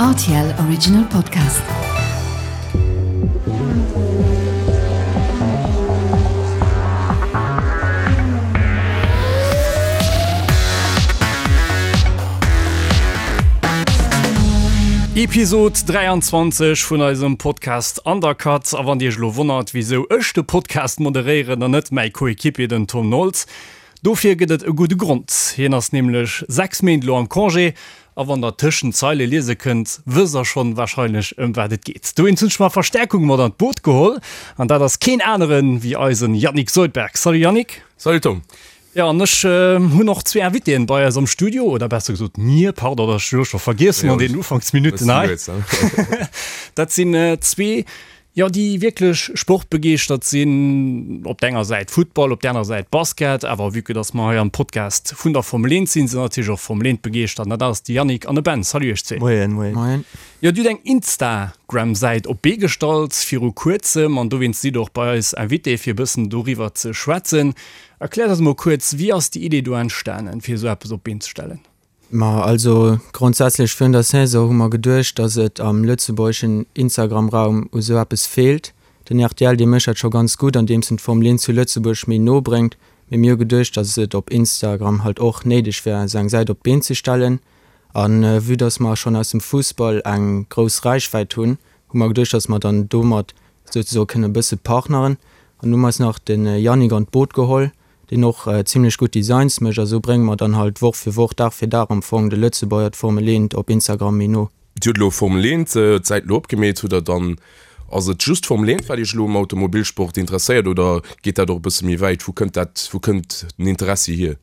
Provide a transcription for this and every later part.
Rtl Original Podcast. Episod 23 vun eisem Podcast Undercut. A wann Dir Iech elo wonnert, wisou ech de Podcast moderéieren an net mäi Coéquipier den Tom Nolz, Dofir gëtt et e gudde Grond, hien ass nämlech 6 Méint elo am Congé a wann der tëschent d'Zeile liese kënnt, wësst der schonn warscheinlech ëm wat et geet. Dowéinst hunn ech mer Verstärkung mat an d'Boot geholl an dat ass keen aneren wéi eisen Yannick Soldberg. Salut Yannick! Salut Tom! Jo an ech hunn och zwee Invitéen bei eis am Studio, oder besser gesot mir, pardon, dat ech elo scho vergiess hunn an deenen Ufanksminutten hei. Dat sinn zwee Jo, déi wierklech sportbegeeschtert sinn, op der enger Säit Futtball, op der anerer Säit Basket, awer vue que dass mer hei am Podcast vun der Formel 1 sinn, sinn natierlech och Formel 1 begeeschtert an dat ass de Yannick an de Ben. Salut iech zwee. Moien, moien. Moien. Jo, Dir hutt eng Instagram-Säit op d'Bee gestallt viru kuerzem an dowéinst sidd Der och bei eis Invité fir e bëssen doriwwer ze schwätzen. Erkläert eis emol kuerz, wéi ass déi Idee do entstanen, fir esou eppes op d'Been ze stellen? Ma also grondsätzlech virun der Saison hu mer geduecht, datt et am lëtzebuergeschen Instagram-Raum u sou eppes feelt. Den rtl dee mécht dat scho ganz gutt, andeems en d'Formel 1 zu Lëtzebuerg méi no bréngt. Mee mir hu geduecht, datt et op Instagram halt och néideg wär, sou eng Säit op d'Been ze stellen. A vue datt mer schonn aus dem Fussball eng grouss Räichwäit hunn, hu mer geduecht, datt mer dann domat souzesoe kënne e bësse partneren. An hu mer eis nach de Yannick an d'Boot geholl, deen och zimlech gutt Designs mécht a sou brénge mer dann halt Woch fir Woch, Dag fir Dag am Fong de Lëtzebuerger d'Formel 1 op Instagram méi no. Dir hutt elo Formel 1 d'Säit elo opgemeet, hutt der dann, ass et just Formel 1 wat Iech elo um Automobilsport interesséiert oder geet dat och e bësse méi wäit? Wou kënnt dat, wou kënnt den Interessi hier?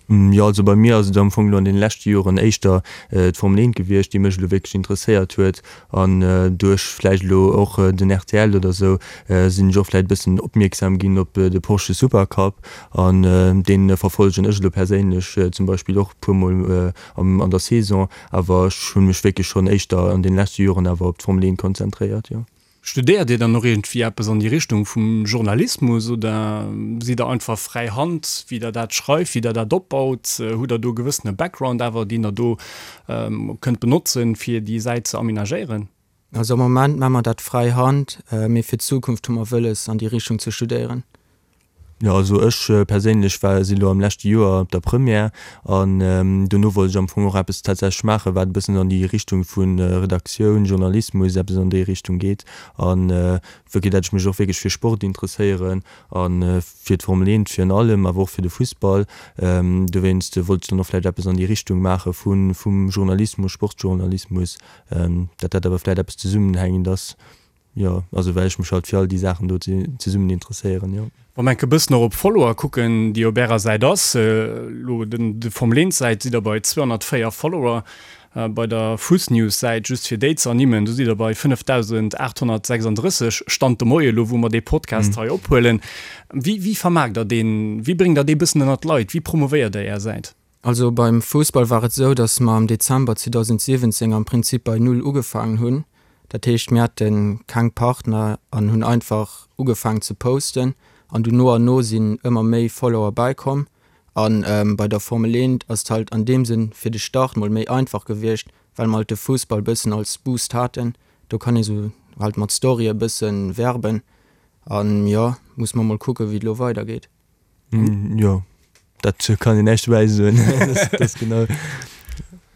Jo, also bei mir ass et am Fong elo an deene leschte Joren éischter d'Formel 1 gewiescht, déi mech elo wierklech interesséiert huet. An duerch vläicht elo och den rtl oder esou sinn ech och vläicht e bëssen opmierksam ginn op de Porsche Supercup. An dee verfollegen ech elo perséinlech zum Beispill och e puer Mol an der Saison. Awer ech hu mech wierklech schonn éischter an deene leschte Joren awer op d'Formel 1 konzentréiert, jo. Studéiert Dir dann och iergendwéi eppes an déi Richtung vum Journalismus oder sidd Der einfach fräi Hand, wéi Der dat schreift, wéi Der dat opbaut? Hutt Der do e gewëssene Background awer, deen Der do kënnt benotzen, fir déi Säit ze amenagéieren? Also am Moment maache mer dat fräi Hand, mee fir d'Zukunft hu mer wëlles, an déi Richtung ze studéieren. Jo, also ech perséinlech war, sinn elo am leschte Joer op der Première an dono wollt ech am Fong och eppes tatsächlech maachen, wat e bëssen an déi Richtung vu Redaktioun, Journalismus, eppes an déi Richtung geet. An wierklech, dat ech mech och wierklech fir Sport interesséieren a fir d'Formel 1 virun allem, awer och fir de Fussball. Dowéinst wollt ech dann och vläicht eppes an déi Richtung maache vu vum Journalismus, Sportjournalismus, dat dat awer vläicht eppes zesummenhängend ass. Jo, also well ech mech halt fir all déi Saachen do zesummen interesséieren, jo. Wa mer enke bëssen och op Follower kucken, déi op ärer Säit ass, elo den de Formel 1 Säit sidd der bei 204 Follower, bei der Fussnews Säit, just fir déi ze ernimmen, do sidd der bei 5.836, Stand de Moie elo wou mer dee Podcast hei ophuelen. Wéi wéi vermaarkt der deen, wéi bréngt der dee bëssen ënnert d'Leit, wéi promovéiert der är Säit? Also beim Fussball war et esou, datt mer am Dezember 2017 am Prinzip bei Null ugefaangen hunn. Dat heescht, mir hate keng Partner an hunn einfach ugefaangen ze posten an du no an no sinn ëmmer méi Follower bäikomm. A bei der Formel 1 ass et halt an deem Sënn fir de Start mol méi einfach gewiescht, well mer halt de Fussball bëssen als Boost haten. Do kann ee sou halt mat Storye bësse werben an jo, muss mer mol kucken, wéi et elo weidergeet. Jo, dat kann een näischt dobäi soen. Dat ass genau.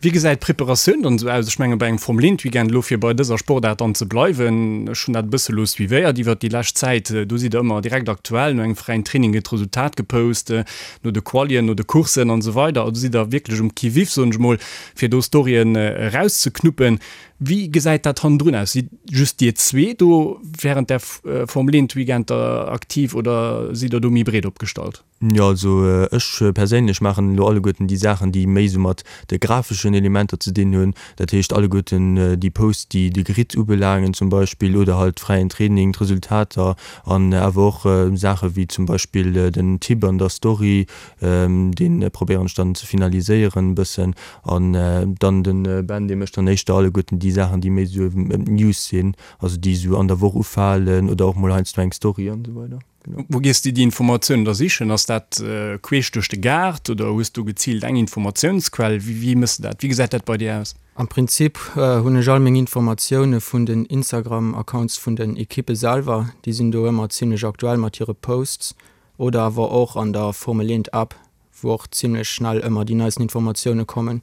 Wéi gesäit d'Preparatioun dann esou aus? Ech menge bei engem Formel 1 Weekend, elo fir bei dëser Sportaart dann ze bleiwen, ech hunn dat e bësse lo suivéiert iwwert déi lescht Zäit, do sidd der ëmmer direkt aktuell, no engem fräien Training gëtt d'Resultat gepost, no de Qualien, no de Courssen an esou weider. Also sidd der wierklech um Qui-vive, soen ech mol, fir do Storyen erauszeknuppen. Wéi gesäit dat hannendrun aus? Sidd just dir zwee do während der Formel 1 Weekender aktiv oder sidd der do méi breet opgestallt? Jo, also ech perséinlech maachen elo alleguerten déi Saachen, déi méi esou mat de grafeschen Elementer ze dinn hunn. Dat heescht alleguerten déi Posts, déi de Grid ubelaangen zum Beispill oder halt fräien Training, d'Resultater an awer och Saache wéi zum Beispill den Tipp an der Story, Deen probéieren ech dann ze finaliséieren e bëssen an dann den Ben dee mécht dann éischter alleguerten déi Saachen déi méi esou ëm d'News sinn, also déi esou an der Woch ufalen oder och mol heiansdo eng Story an esou weider. Genau. Wou gees de déi Informatiounen da sichen? Ass dat queesch duerch de Gaart oder hues du geziilt eng Informatiounsquell? Wéi, wéi méchs de dat? Wéi gesäit dat bei dir aus? Am Prinzip hunn ech all meng Informatioune vun den Instagram-Accounts vun den Ekippe selwer. Déi sinn do ëmmer zimmlech aktuell mat hire Posts oder awer och an der Formel 1 App, wou och zimmlech schnell ëmmer déi neisten Informatioune kommen.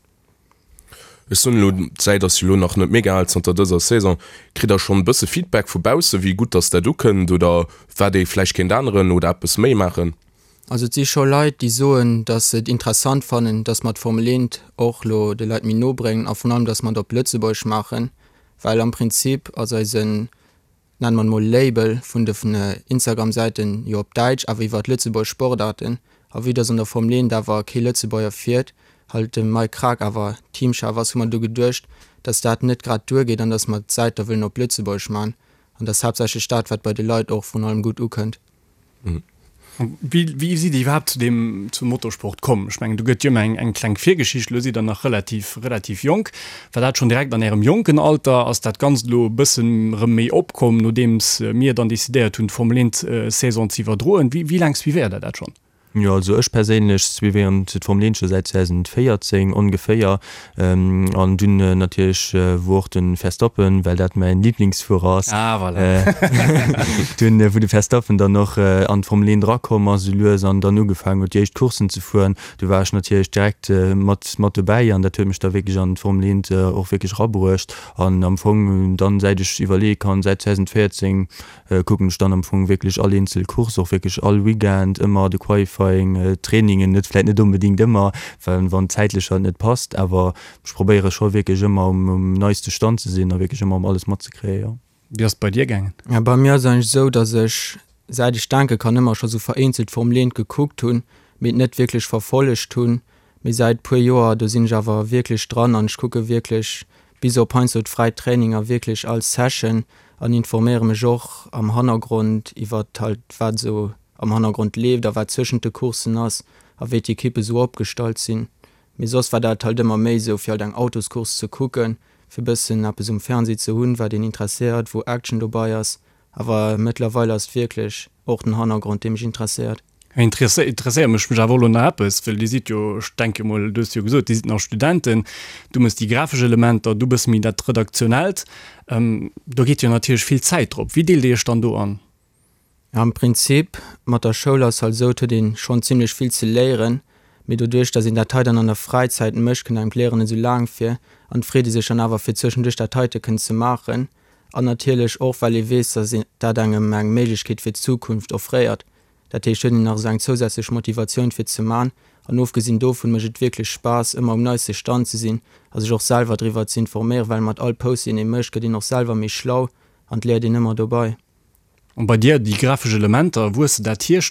Ech soen elo, d'Säit ass jo elo nach net mega al, zanter dëser Saison. Kritt der schonn e bësse Feedback vu bausse wéi gutt dass dat ukënnt oder wat ee vläicht kéint änneren oder eppes méi maachen? Also et si scho Leit déi soen, dass se et interessant fannen, dass mer d'Formel 1 och lo de Leit méi no bréngen a vrun allem, dass mer et op Lëtzebuergesch maachen, well am Prinzip ass eisen nennen mer et mol Label vun de Instagram Säiten jo op Däitsch awer iwwert lëtzebuergesch Sportarten a vue dass an der Formel 1 awer kee Lëtzebuerger fiert, halt de Mike Krack awer Teamchef ass, hu mer du geduecht dass dat net grad duer geet an dass mer d'Säit da wëllen op Lëtzebuergesch man an dass haaptsächlech dat wat bei de Leit och vrun allem gutt ukënnt. Wéi, wéi sidd Dir iwwerhaapt zu deem, zum Motorsport komm? Ech mengen, do gëtt jo ëmmer eng, eng kleng Virgeschicht. Elo sidd Der nach relativ, relativ jonk. War dat schonn direkt an Ärem jonken Alter? Ass dat Ganzt elo e bëssen erëm méi opkomm, nodeems mir dann decidéiert hunn, d'Formel 1 Saison ze iwwerdroen? Wéi, wéi laang suivéiert Der dat schonn? Jo, also ech perséinlech suivéieren d'Formel 1 scho säit 2014 ongeféier. An dunn natierlech wou och de Verstappen, well dat mäin Liblingsfuerer ass, Ah, voilà. dunn wou de Verstappen dann och an d'Formel 1 erakomm ass esou lues an dann ugefaangen huet déi éischt Courssen ze fueren, du war ech natierlech direkt mat mat dobäi an dat huet mech da wierklech an d'Formel 1 och wierklech erabruecht. An am Fong dann säit ech iwwerleeë kann, säit 2014, kucken ech dann am Fong wierklech all eenzel Course, och wierklech all Weekend, ëmmer de Qualifying, d'Trainingen, net vläit net onbedéngt ëmmer, well wann zäitlech halt net passt, awer ech probéiere scho wierklech ëmmer um um neiste Stand ze sinn a wierklech ëmmer um alles matzekréien, jo. Wéi ass et bei dir gaangen? Ja, bei mir ass et eigentlech esou, datt ech säit ech denke kann ëmmer scho sou vereenzelt Formel 1 gekuckt hunn, mee et net wierklech verfollegt hunn. Mee säit puer Joer, do sinn ech awer wierklech dran an ech kucke wierklech bis op heiansdo d'fräi Traininger wierklech all Session an informéiere mech och am Hannergrond iwwert halt wat esou am Hannergrond leeft a wat zwëschent de Courssen ass a wéi d'Ekippe sou opgestallt sinn. Mee soss war dat halt ëmmer méi sou fir halt eng Autoscourse ze kucken, fir bëssen eppes um Fernseh ze hunn wat een interesséiert, wou Action dobei ass. Awer mëttlerweil ass et wierklech och den Hannergrond dee mech interesséiert. Interesséiert mech mech awer och elo nach eppes, well Dir sidd jo, ech denke mol, du hues jo gesot, Dir sidd nach Studenten, du méchs déi grafesch Elementer, du bësse méi dat Redaktionellt, do geet jo natierlech vill Zäit drop. Wéi deelt Dir Iech dann do an? Am Prinzip, mat der Schoul ass halt esou, et huet ee schonn zimmlech vill ze léieren, mee doduerch, datt een dat hei dann an der Fräizäit mécht, kënnt engem d'Léieren net esou laang vir an et freet ee sech dann awer fir zwëschenduerch dat heite kënnen ze maachen an natierlech och, well ee weess, datt dat engem eng Méiglechkeet fir d'Zukunft offréiert. Dat heescht, huet een nach esou eng zousätzlech Motivatioun fir ze man. An ofgesinn dovun mécht et wierklech Spaass ëmmer um neiste Stand ze sinn a sech och selwer driwwer ze informéieren, well mat all Post deen ee mécht gëtt een och selwer méi schlau an et léiert een ëmmer dobei. An bei dir déi grafesch Elementer, wou hues de dat hier?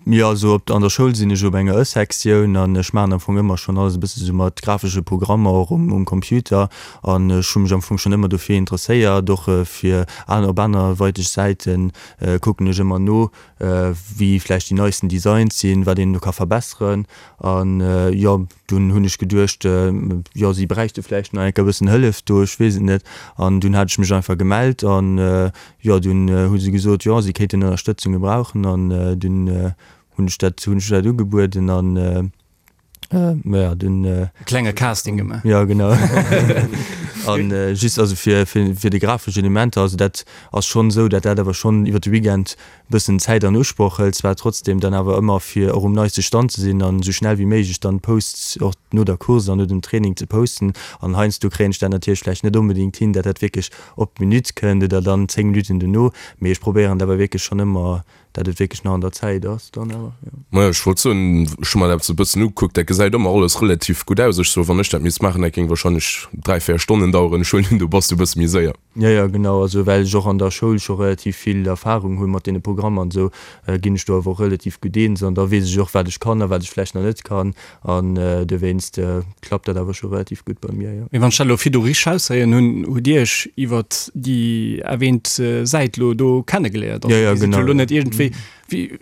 Jo, also op an der Schoul sinn ech op enger Ë-Sektioun an ech maachen am Fong ëmmer schonn alles e bësse sou mat grafesche Programmer och um um Computer an ech hu mech am Fong schonn ëmmer dofir interesséiert, och fir aner op anerweiteg Säiten kucken ech ëmmer no, wéi vläicht déi neisten Designs sinn, wat een do ka verbesseren. An jo, dunn hunn ech geduecht, jo, si bräichte vläicht nach eng Kéier e bëssen Hëllef do, ech weess et net. An dunn hat ech mech einfach gemellt an jo, dunn hu se gesot, jo, si kéinten Ënnerstëtzung gebrauchen an dunn hunn ech dat, hunn ech dat ugebueden an. Ja, dunn. E klenge Casting gemaach. Ja, genau. An just also fir, fir, fir déi grafesch Elementer, also dat ass schonn esou, dat dat awer schonn iwwer de Weekend e bëssen Zäit an Usproch hëlt, zwar trotzdem dann awer ëmmer fir och um neiste Stand ze sinn an esou schnell wéi méiglech dann d'Posts och no der Course an no dem Training ze posten. An heiansdo kréien ech dat natierlech vläicht net onbedéngt hin, dat dat wierklech op d'Minutt kënnt oder dann 10 Minutten dono, mee ech probéieren et awer wierklech schonn ëmmer Dat et wierklech nach an der Zäit ass dann awer, jo. Majo, ech wollt soen, ech hu mer dat esou e bëssen ugekuckt, dat gesäit ëmmer alles relativ gutt aus. Ech soen, wann ech dat misst maachen, dat géing wahrscheinlech 3, 4 Stonnen daueren. Ech huelen un, do bass du e bësse méi séier. Jo, jo, genau. Also well ech och an der Schoul scho relativ vill Erfahrung hu mat deene Programmer an esou, ginn ech do awer och relativ gutt eens an da weess ech och, wat ech kann a wat ech vläicht nach net kann an dowéinst klappt dat awer scho relativ gutt bei mir, jo. Mee wann ech dat elo virdu richteg raushéieren hunn, hutt Dir Iech iwwert déi erwähnt Säit elo do kennegeléiert? Also Dir sidd jo elo net iergendwéi. Wéi, wéi,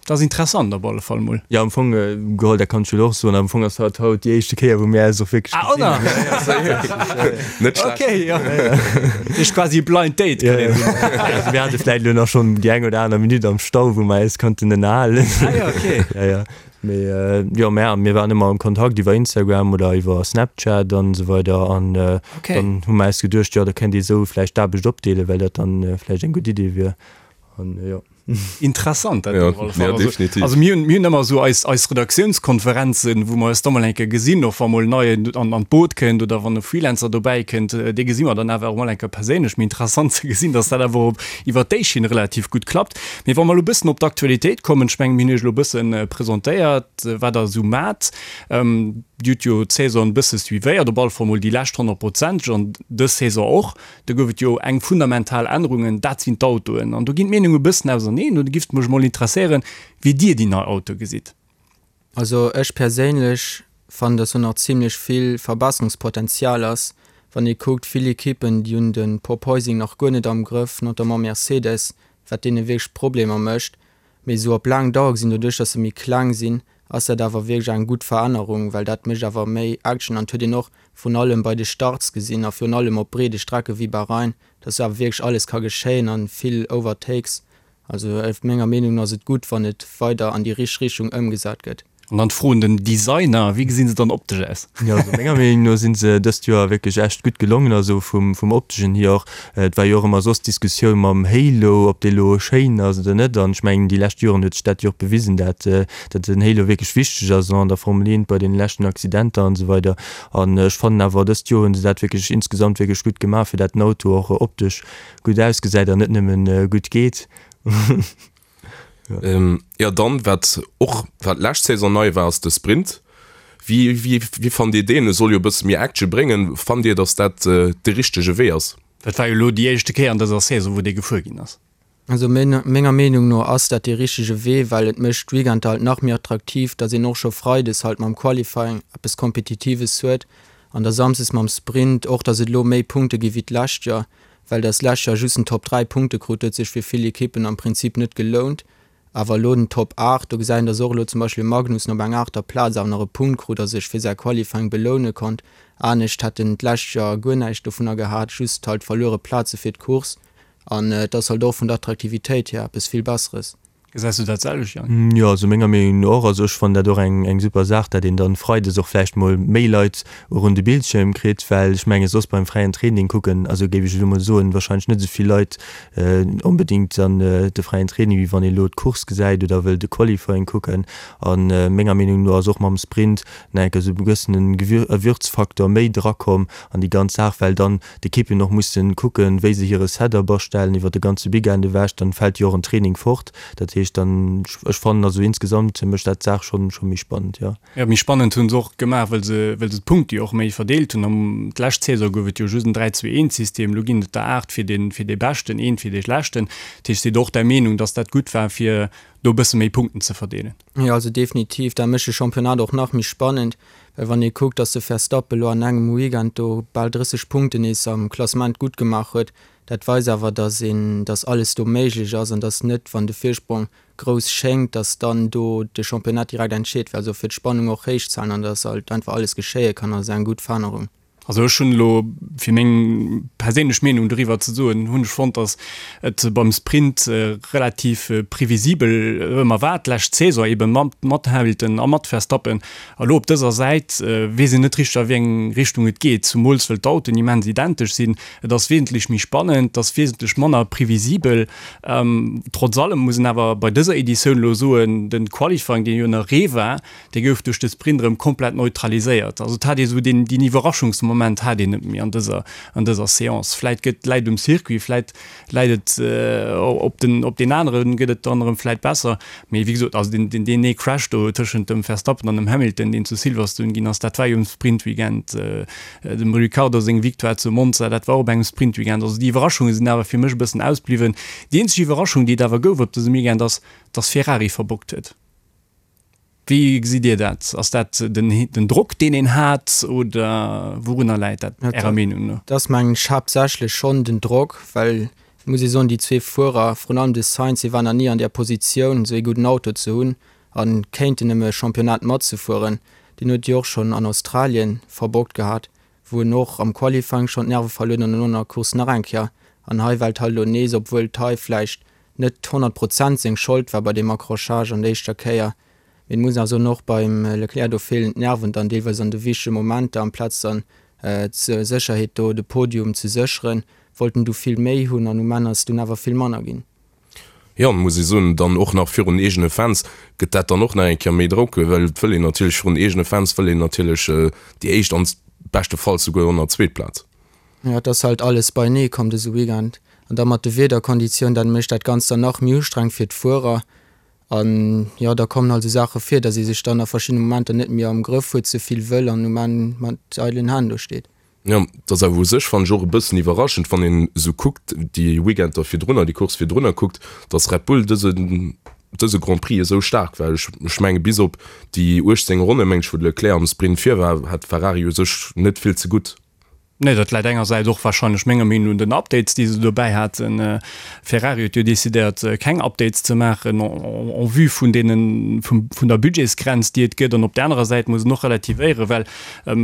dat ass interessant op alle Fall mol. Jo, am Fong geholl, dat kann ech jo och soen, am Fong ass haut haut déi éischte Kéier, wou mir eis och wierklech Ah, gesinn oder? hunn. Net schlecht. Okay, jo. Dat ass quasi e Blind Date, Ja, kann ja. een soen. Also mir hate vläicht elo nach schonn déi eng oder aner Minutt am Stau, wou mer eis konnten ënnerhalen. Ah jo, okay. Ja, ja. Mee jo, mä mir waren ëmmer am Kontakt iwwer Instagram oder iwwer Snapchat an esou weider an Okay. dann hu mer eis geduecht, jo da kéint ee sou vläicht d'Aarbecht opdeelen, well dat dann vläicht eng gutt Idee wier an jo. Interessant dat Ja, op alle Fall. ja, Also, definitiv. also mir hunn, mir hunn ëmmer esou eis, eis Redaktiounskonferenzen, wou mer eis da mol eng Kéier gesinn, och wa mol en Neien an, an d'Boot kënnt oder wann e Freelancer dobäi kënnt, dee gesi mer dann awer och mol eng Kéier perséinlech. Mee interessant ze gesinn, datt dat awer och iwwert déi Schinn relativ gutt klappt. Mee wa mer elo e bëssen op d'Aktualitéit kommen, ech mengen, mir hunn Iech elo e bësse presentéiert, wat Der esou maacht. Dir hutt jo d'Saison e bësse suivéiert, op alle Fall mol déi lescht honnertprozenteg an dës Saison och. Do gouf et jo eng fundamental Ännerungen, dat sinn d'Autoen. An do ginn d'Meenunge e bëssen auserneen. Do giff et mech emol interesséieren, wéi Dir déi nei Autoe gesitt. Also ech perséinlech fannen dass do nach zimlech vill Verbesserungspotenzial ass, wann ee kuckt vill Equippen déi hunn de Porpoising nach guer net am Grëff, notamment Mercedes, wat deene wierklech Problemer mécht. Mee esou op laang Dauer gesinn, doduerch dass se méi kleng sinn, ass dat awer wierklech eng gutt Verännerung, well dat mécht awer méi Action an et huet een och vrun allem bei de Starts gesinn a virun allem op breede Strecke wéi Bahrain, dass do awer wierklech alles ka geschéien an vill Overtakes Also menger Meenung no ass et gutt, wann et weider an déi richteg Richtung ëmgesat gëtt. An dann d'Fro un den Designer, Wéi gesinn se dann optesch aus? Jo, also menger Meenung no sinn se dëst Joer wierklech echt gutt gelongen, also vum vum opteschen hier och. Et war jo och ëmmer soss d'Diskussioun mam Halo, ob dee lo schéin ass oder net. An ech mengen déi lescht Joren huet sech dat jo och bewisen, dat dat den Halo wierklech wichteg ass an der Formel 1 bei deene leschten Accidenter an esou weider. An ech fannen awer dëst Joer hunn se dat wierklech insgesamt wierklech gutt gemaach, fir dat den Auto och optesch gutt ausgesäit an net nëmmen gutt geet. Jo dann wat och wat lescht Saison nei war ass de Sprint. Wéi wéi wéi fannt dir deen? E soll jo e bësse méi Action bréngen. Fannt dir datt dat de richtege Wee ass? Dat war jo elo déi éischte Kéier an dëser Saison wou dee gefuer ginn ass. Also menger Meenung no ass dat dee richtege Wee, well et mécht d'Weekender halt nach méi attraktiv, datt een och scho Freides halt mam Qualifying eppes Kompetitives huet an da Samsdes mam Sprint och, datt et elo méi Punkte gi wéi d'lescht Joer. Well dass lescht Joer just den Top 3 Punkte krut, huet sech fir vill Ekippen am Prinzip net gelount. Awer elo den Top 8, do gesäit een, dass och elo zum Beispill de Magnussen op enger aachter Plaz awer nach e Punkt krut a sech fir säi Qualifying beloune konnt. Anescht hätt en d'lescht Joer guer näischt dovunner gehat, just halt verluere Plaze fir d'Course. An et ass halt och vun der Attraktivitéit hier eppes vill Besseres. Gesäis du dat selwecht, Jang? Jo, also menger Meenung no och. Also ech fannen dat och eng eng super Saach, dat een dann Freides och vläicht mol méi Leit och un de Bildschierm kritt, well ech menge soss beim fräien Training kucken, also géif ech elo mol soen, wahrscheinlech net esou vill Leit onbedéngt dann de fräien Training, wéi wann ee elo d'Course gesäit oder wëll de Qualifying kucken. A menger Meenung no ass och mam Sprint nach enke sou e gewëssene Gewürzfaktor méi drakomm an déi ganz Saach, well dann d'Ekippen och mussen kucken, wéi se hire Setup astellen iwwer de ganze Weekend ewech, dann fält jo och en Training fort. Dat heescht dann, ech fannen also insgesamt mécht dat d'Saach schonn scho méi spannend, jo. Jo, méi spannend hunn se och gemaach, well se well se d'Punkte jo och méi verdeelt hunn. Am d'lescht Saison gouf et jo just en 3, 2, 1 System, elo ginn et der 8 fir den fir dee Beschten, eent fir dee Schlechten. Dat heescht, sidd och der Meenung, datt dat gutt war fir do e bësse méi Punkten ze verdeelen? Jo, also definitiv. Dat mécht de Championnat och nach méi spannend, well wann ee kuckt, datt de Verstappen elo an engem Weekend do bal 30 Punkten nees am Klassement gutt gemaach huet, dat weist awer, datt een, datt alles do méiglech ass an datt net, wann de Virsprong grouss schéngt, datt dann do de Championnat direkt entscheet wär. Also fir d'Spannung och héich ze halen an datt halt einfach alles geschéie kann, ass eng gutt Verännerung. Also ech hunn elo, fir meng perséinlech Meenung doriwwer ze soen, hunn ech fonnt, datt et beim Sprint relativ previsibel ëmmer war, d'lescht Saison ebe mat Hamilton a mat Verstappen. A lo op dëser Säit weess een net richteg a wéi eng Richtung et geet, zumools wëll d'Autoen immens identesch sinn. Et ass wesentlech méi spannend, et ass wesentlech manner previsibel. Trotz allem muss een awer bei dëser Editioun elo soen, de Qualifying, deen jo ënner Ree war, Dee gouf duerch de Sprint erëm komplett neutraliséiert. Also et hat ee sou deen, deen Iwwerraschungsmoment hat een net méi an dëser, an dëser Seance. Vläit gëtt, läit um Circuit, vläit läit et op den, op deen aneren gëtt et dann erëm vläit besser. Mee wéi gesot, also deen, deen, deen ee Crash do tëschent dem Verstappen an dem Hamilton, deen zu Silverstone ginn ass, dat war jo um Sprintweekend. Dem Ricciardo seng Victoire zu Monza, dat war och op engem Sprintweekend. Also déi Iwwerraschunge sinn awer fir mech e bëssen ausbliwwen. Déi eenzeg Iwwerraschung, déi et awer gouf op dësem Weekend ass, dass Ferrari verbockt huet. Wéi gesitt Dir dat? Ass dat den Drock, deen een hat, oder wourunner läit dat Ärer Meenung no? Dat ass mengen ech haaptsächlech schonn den Drock, well. Et muss ee soen, déi zwee Fuerer, vrun allem de Sainz, hie war nach ni an där Positioun, esou ee gudden Auto ze hunn a kéinten ëm e Championnat matzefueren. Deen huet jo och schonn an Australien verbockt gehat, wou en och am Qualifying schonn d'Nerve verluer huet an dono an der Course nach eng Kéier. An hei well et halt elo nees, obwuel et hei vläicht net 100 Prozent seng Schold war bei deem Accrochage an der éischter Kéier, Mee et muss awer soen, och beim Leclerc, do feelen d'Nerven dann deelweis an de wichtege Momenter. Amplaz dann zur Sécherheet do de Podium ze sécheren, wollt en du vill méi hunn an um Enn ass et dunn awer vill manner ginn. Jo, muss ee soen, dann och nach virun eegene Fans gëtt dat dann och nach eng Kéier méi Drock, well et wëll een natierlech virun eegene Fans wëll een natierlech déi éischt an beschtefalls souguer och nach zweet Plaz. Jo, et ass halt alles beienee komm dëse Weekend an da mat de Wiederkonditioun, dat mécht dat Ganzt dann nach méi ustrengend fir d'Fuerer. An jo, da kommen halt esou Saache vir, datt ee sech dann a verschiddene Momenter net méi am Grëff huet, ze vill wëll an um Enn mat eidelen Hänn do steet. Jo, et ass awer u sech, fannen ech, och e bëssen iwwerraschend, wann een esou kuckt, déi Weekender virdrunner, déi Course virdrunner kuckt, datt Red Bull dëse, dëse Grand Prix esou staark war. Ech, ech menge bis op déi 18 Ronne, meng ech, wou de Leclerc am Sprint vir war, hat Ferrari u sech net vill ze gutt. Nee, dat läit engersäits och warscheinlech menger Meenung no un den Updates, déi se dobäi haten. Ferrari huet jo decidéiert, keng Updates ze maachen en vue vun deenen, vun der Budgetsgrenz, déi et gëtt. An op där anerer Säit muss een och relativéieren, well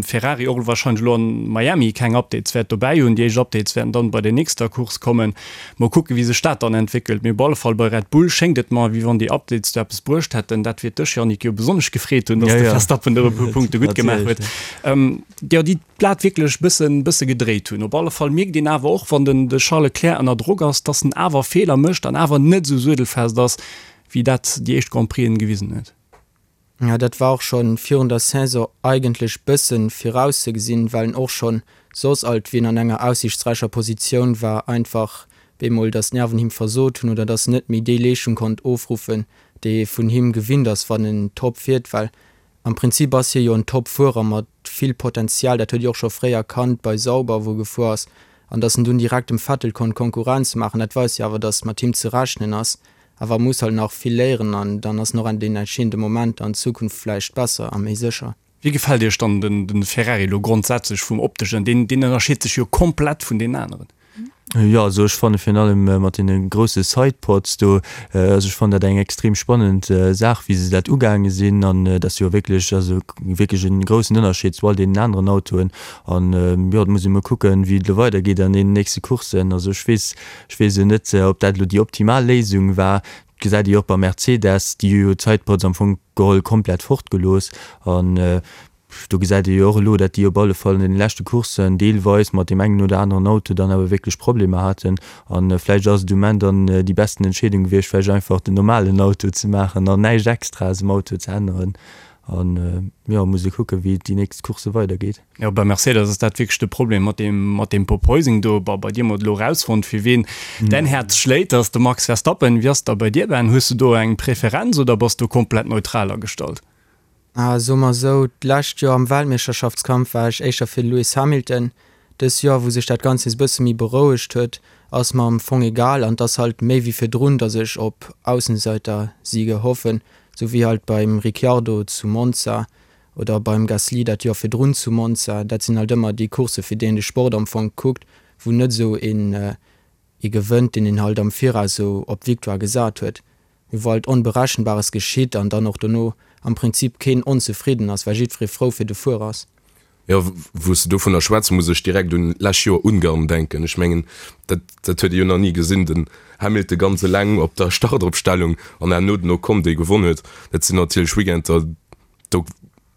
Ferrari och warscheinlech elo an Miami keng Updates wäert dobäi hunn. Déi éischt Updates wäerten dann bei der nächster Course kommen. Mol kucken, wéi sech dat dann entwéckelt. Mee op alle Fall bei Red Bull schéngt et mer, wéi wann déi Updates do eppes bruecht hätten. Dat wäert dech, Yannick, jo besonnesch gefreet hunn, dass de Verstappen do e puer Punkte gutt gemaach huet. Jo, déi d'Blat wierklech bëssen bësse gedréit hunn. Op alle Fall mierkt een awer och, wann den de Charles Leclerc ënner Drock ass, dass en awer Feeler mécht an awer net esou suedelfest ass, wéi dat déi éischt Grand Prixen gewisen huet. Jo, dat war och schonn virun der Saison eigentlech bëssen virauszegesinn, well en och schonn soss alt, wéi en an enger aussiichtsräicher Positioun war, einfach bemol, dass d'Nerven him versot hunn oder dass en net méi déi Leeschtung konnt ofruffen, déi ee vun him gewinnt ass, wann en top fiert, well Am Prinzip ass hie jo en Top-Fuerer mat vill Potenzial, dat huet ee och scho fréier kannt bei Sauber, wou e gefuer ass. An datt en dunn direkt dem Vettel konnt Konkurrenz maachen, dat weist jo awer, datt mat him ze rechnen ass. Awer e muss halt nach vill léieren an dann ass en och an den entscheedende Momenter an Zukunft vläicht besser a méi sécher. Wéi gefält Iech dann den Ferrari elo grondsätzlech vum opteschen? Deen ënnerscheet sech jo komplett vun deenen aneren. Jo, also ech fanne virun allem mat deene grousse Sidepods do, also ech fannen dat eng extrem spannend Saach wéi se dat ugaange sinn an et ass jo wierklech, also wierklech e groussen Ënnerscheed zu all deenen aneren Autoen an jo, et muss ee mol kucken wéi et elo weidergeet an deenen nächste Courssen. Also ech weess, ech weess elo net ob dat elo déi optimal Léisung war, et gesäit ee jo och bei Mercedes, déi hu jo d'Sidepods am Fong geholl komplett fortgelooss an Do gesäit ee jo och elo, dat déi op alle Fall an deene leschte Courssen deelweis mat deem engen oder aneren Auto dann awer wierklech Problemer haten. A vläicht ass et um Enn dann déi besten Entscheedung gewiescht, vläicht einfach den normalen Auto ze maachen an näischt Extraes um Auto ze änneren. An jo, muss ee kucken, wéi et déi nächst Coursse weidergeet. Jo, bei Mercedes ass dat wierklech de Problem mat deem, mat deem Porpoising do. Bon, bei dir hu mer et elo erausfonnt, fir wien däin Häerz schléit, dat ass de Max Verstappen. Wéi ass et da bei dir, Ben? Hues du do eng Preferenz oder bass du komplett neutral agestallt? Ah, soe mer esou, d'lescht Joer am Weltmeeschterschaftskampf war ech éischter fir de Lewis Hamilton. Dës Joer, wou sech dat Ganzt nees e bësse méi berouegt huet, ass mer am Fong egal an et ass halt méi wéi virdrun, datt ech op Aussenseitersiege hoffen, sou wéi halt beim Ricciardo zu Monza oder beim Gasly dat Joer virdrun zu Monza. Dat sinn halt ëmmer déi Coursse fir déi een de Sport am Fong kuckt, wou net esou een ee gewënnt, deen een halt am Viraus esou op d'Victoire gesat huet. Mee wou halt Onberechenbares geschitt an dann och dono am Prinzip keen onzefridden ass, well jiddweree frou fir de Fuerer ass. Jo, wou s de dovunner schwätz, muss ech direkt un lescht Joer Ungarn denken. Ech mengen, dat, dat huet ee jo nach ni gesinn, den Hamilton ganz eleng op der Startopstellung an herno den Ocon, dee gewonn huet. Dat sinn natierlech Weekender, do,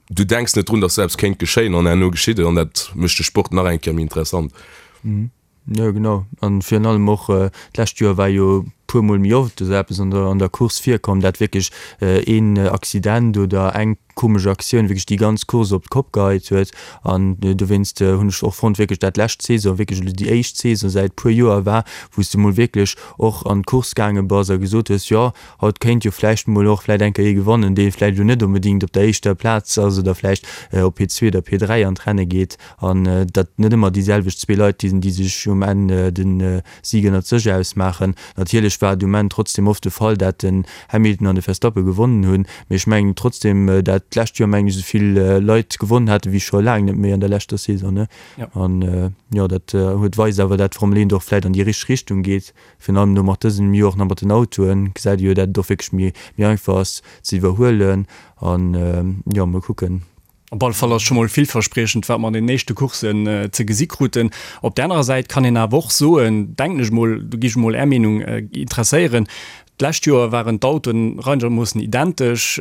du denks net drun, datt esou eppes kéint geschéien an herno geschitt et an dat mécht de Sport nach eng Kéier méi interessant. Jo genau, an virun allem och d'lescht Joer war jo puer mol méi oft esou eppes an der an der Course virkomm, dat wierklech een Accident oder eng komesch Aktioun wierklech déi ganz Course op d'Kopp geheit huet. An dowéinst hunn ech och fonnt wierklech dat lescht Saison wierklech elo déi éischt Saison säit puer Joer war, wou s de mol wierklech och an d'Course gaange bass a gesot hues, jo haut kéint jo vläicht mol och vläicht eng Kéier ee gewannen, dee vläicht elo net onbedéngt op der éischter Plaz ass oder vläicht op P2 oder P3 an d'Renne geet. An datt net ëmmer déi selwecht zwee Leit sinn, déi sech um Enn de Sig ënnert sech ausmaachen. Natierlech war et um Enn trotzdem oft de Fall, dat den Hamilton an de Verstappen gewonnen hunn, mee ech mengen trotzdem, dat. d'lescht Joer mengen ech esou vill Leit gewonnen haten wéi scho laang net méi an der leschter Saison ne. An jo dat huet weist awer dat d'Formel 1 och vläit an déi richteg Richtung geet. Virun allem elo mat dësem Joer och nach mat den Autoen gesäit ee jo dat et och wierklech méi méi einfach ass ze iwwerhuelen an jo mol kucken. Op alle Fall ass scho mol villverspriechend, wat mer an den éischte Courssen ze gesi kruten. Op där anerer Säit kann een awer och soen, denken ech mol, do gi ech mol Är Meenung interesséieren, d'lescht Joer waren d'Autoen reinermoossen identesch,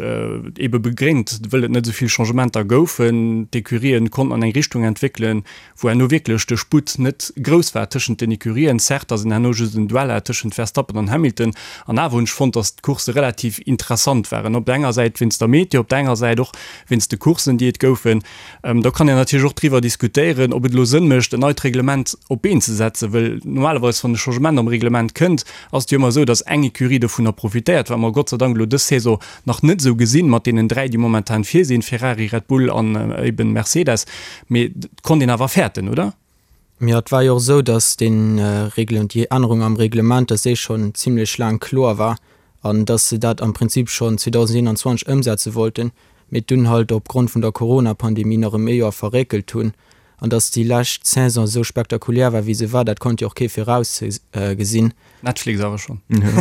ebe begréngt, wëll et net esou vill Changementer goufen. D'Ecurien konnten an eng Richtung entwéckelen, wou herno wierklech de Sputt net grouss war tëschent den Ecurien. Certes, ass en herno just en Duell hat tëschent Verstappen an Hamilton, an awer hunn ech fonnt, datt d'Coursse relativ interessant waren. Op der enger Säit wéinst der Meteo, op der anerer Säit och wéinst de Courssen, déi et goufen. Do kann een natierlech och driwwer diskutéieren, ob et elo Sënn mécht, en neit Reglement op d'Been ze setzen, wëll normalerweis, wann e Changement am Reglement kënnt, ass et jo ëmmer esou, datt eng Ecurie dovunner profitéiert, wat mer Gott sei Dank elo dës Saison nach net esou gesinn, mat deenen 3, déi momentan vir sinn, Ferrari, Red Bull an eben Mercedes. Mee et konnt een awer fäerten, oder? Jo, et war jo och esou, datt déi Ännerung am Reglement, datt déi schonn zimlech laang kloer war an datt se dat am Prinzip schonn 2021 ëmsetze wollten, mee dunn halt opgrond vun der Corona-Pandemie nach ëm ee Joer verréckelt hunn. An datt déi lescht Saison esou spektakulär war, wéi se war, dat konnt jo och kee virausgesinn. Netflix awer schonn. Déi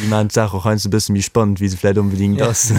maachen d'Saach och heiansdo e bësse méi spannend, wéi se vläicht onbedéngt ass.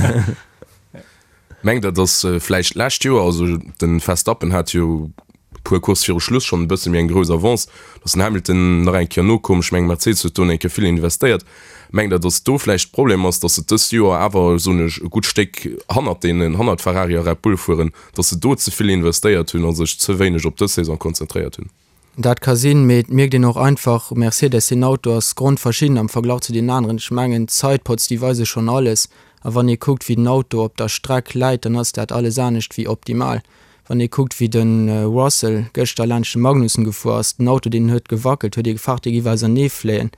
Mengt der, dass vläicht d'lescht Joer, also de Verstappen hat jo e puer Coursse viru Schluss schonn e bësse méi eng grouss Avance, dass den Hamilton nach eng Kéier nokoum, ech mengen Mercedes huet do eng Kéier vill investéiert, mengt der, dass do vläicht de Problem ass, dass se dëst Joer awer, soen ech, e gutt Stéck hannert deenen, hannert Ferrari a Red Bull fueren, dass se do ze vill investéiert hunn a sech ze wéineg op dës Saison konzentréiert hunn? Dat ka sinn, mee et mierkt een och einfach, Mercedes, deen Auto ass grondverschidden am Verglach zu deenen aneren. Ech mengen, d'Sidepods, déi weise schonn alles. A wann ee kuckt, wéi den Auto op der Streck läit, dann ass dat alles anescht wéi optimal. Wann ee kuckt, wéi de Russell gëschter laanscht de Magnussen gefuer ass, den Auto, deen huet gewackelt, huet ee gefaart, dee giff auserneefléien.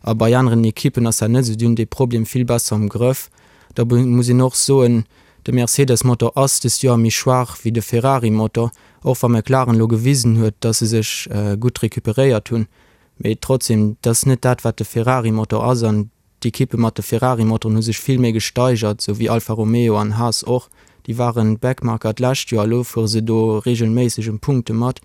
A bei aneren Ekippen ass dat net esou, déi hunn dee Problem vill besser am Grëff. Da muss een och soen, de Mercedes-Motor ass dëst Joer méi schwaach wéi de Ferrari-Motor, och wa McLaren elo gewisen huet, datt se sech gutt recuperéiert hunn. Mee trotzdem, et ass net dat, wat de Ferrari-Motor ass. An d'Ekippe mat de Ferrari-Motoren hu sech vill méi gesteigert, esou wéi Alfa Romeo an Haas och. Déi waren Backmarker d'lescht Joer, elo fuere se do reegelméisseg ëm Punkte mat.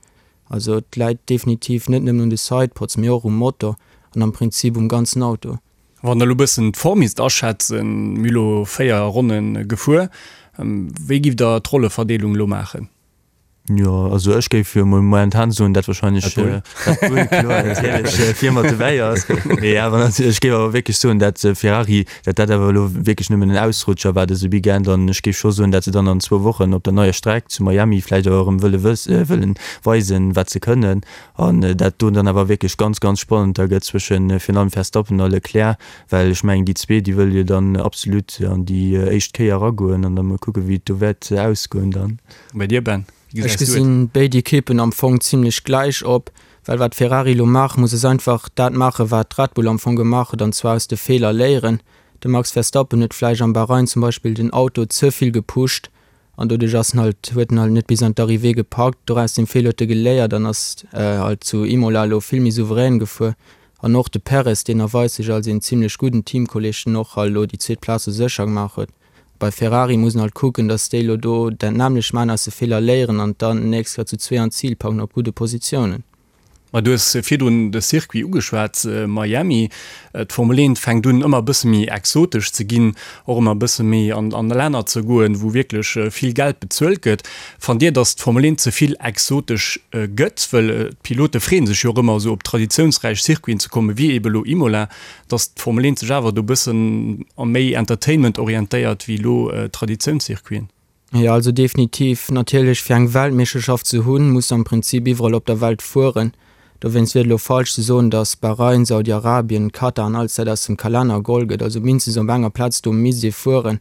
Also et läit definitiv net nëmmen un de Sidepods, mee och um Motor an am Prinzip um ganzen Auto. Wann der elo bëssen d'Form misst aschätzen, mir hu lo 4 Ronne gefuer, wéi giff der d'Rolleverdeelung elo maachen? Jo, also ech géif jo mol momentan soen, dat wahrscheinlech Red Bull, kloer, natierlech vir mat dobäi ass. Mee awer natierlech, ech géif awer wierklech soen, dat Ferrari, dat dat awer elo wierklech nëmmen en Ausrutscher war dëse Weekend an ech géif scho soen, dat se dann an zwou Wochen op der neier Streck zu Miami vläicht awer erëm wëlle wëss, wëllen weisen, wat se kënnen. An dat do dann awer wierklech ganz, ganz spannend da gëtt zwëschen virun allem Verstappen a Leclerc, well ech mengen, déi zwee, déi wëlle jo dann absolut an déi éischt Kéier eragoen an da mol kucken, wéi et do wäert ausgoen dann. Bei dir, Ben, wéi gesäis du et? Ech gesinn béid Ekippen am Fong zimlech gläich op, well wat Ferrari elo maache muss, ass einfach dat maachen, wat Red Bull am Fong gemaach huet, an zwar aus de Feeler léieren. De Max Verstappen huet vläicht am Bahrain zum Beispill den Auto ze vill gepusht An doduerch ass en halt, huet en halt net bis an d'Arrivée gepackt. Doraus dem Feeler huet e geléiert an ass halt zu Imola elo vill méi souverän gefuer. An och de Perez, deen erweist sech als een zimlech gudden Teamkolleg, den och halt elo déi zweet Plaz sou sécher gemaach huet. Bei Ferrari muss en halt kucken, datt déi elo do dat nämmlecht maachen, aus de Feeler léieren an dann d'nächst Kéier zu zwee an d'Zil packen op gudde Positiounen. Ma du hues virdrun de Circuit ugeschwat, Miami. D'Formel 1 fänkt un ëmmer e bësse méi exotesch ze ginn, och ëmmer e bësse méi an an Länner ze goen, wou wierklech vill Geld bezuelt gëtt. Fannt Dir, datt d'Formel 1 ze vill exotesch gëtt? Wëll d'Pilote freeën sech jo och ëmmer esou op traditiounsräich Circuiten ze kommen, wéi eebe elo Imola, datt d'Formel 1 sech awer do e bëssen méi Entertainment orientéiert wéi elo Traditiounscircuiten. Jo, also definitiv. Natierlech, fir eng Weltmeeschterschaft ze hunn, muss de am Prinzip iwwerall op der Welt fueren. Dowéinst wier et elo falsch ze soen, datt Bahrain, Saudi-Arabien, Katar an alles dat aus dem Kalenner geholl gëtt. Also mindestens op enger Plaz do misst ee fueren.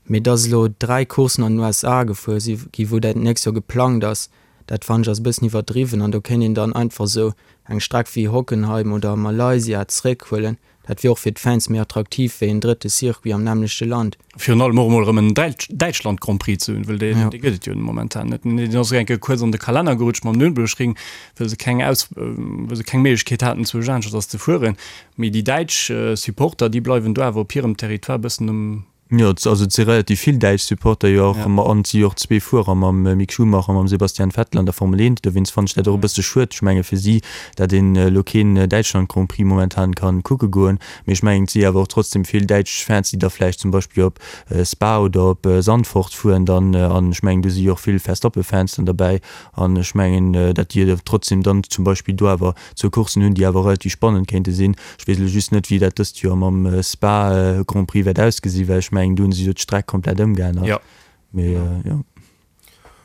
Mee datt elo 3 Courssen an den USA gefuer si gi wou dat nächst Joer geplangt ass, dat fannen ech ass e bëssen iwwerdriwwen. An do kéint een dann einfach esou eng Streck wéi Hockenheim oder Malaysia zeréckhuelen. Dat wier och fir d'Fans méi attraktiv wéi en drëtte Circuit am nämmlechte Land. Virun allem och emol erëm en Däitschland Grand Prix ze hunn, well dee gëtt et jo momentan net. Deen ass och eng Kéier kuerz an de Kalenner gerutscht mam Nürburgring, well se keng Aus, well se keng Méiglechkeet haten zwou aneschters ze fueren. Mee déi däitsch Supporter, déi bleiwen do awer op hirem Territoire e bëssen um. Jo, also et si relativ vill däitsch Supporter jo och, an et si jo och zwee Fuerer mam Mick Schumacher a mam Sebastian Vettel an der Formel 1. Dowéinst fannen ech dat och e bësse schued, ech menge fir si, dat een elo keen Däitschland Grand Prix momentan kann kucke goen. Mee ech mengen et si awer och trotzdem vill däitsch Fans, déi da vläicht zum Beispill op Spa oder op Zandvoort fueren dann, an ech mengen do si jo och vill Verstappen-Fans dann derbäi, an ech mengen dat déi trotzdem dann zum Beispill do awer zwou Courssen hunn, déi awer relativ spannend kéinte sinn. Ech weess elo just net, wéi dat dëst Joer mam Spa Grand Prix wäert ausgesinn, well ech mengen, do hunn se jo d'Streck komplett ëmgeännert. Jo. Mee jo.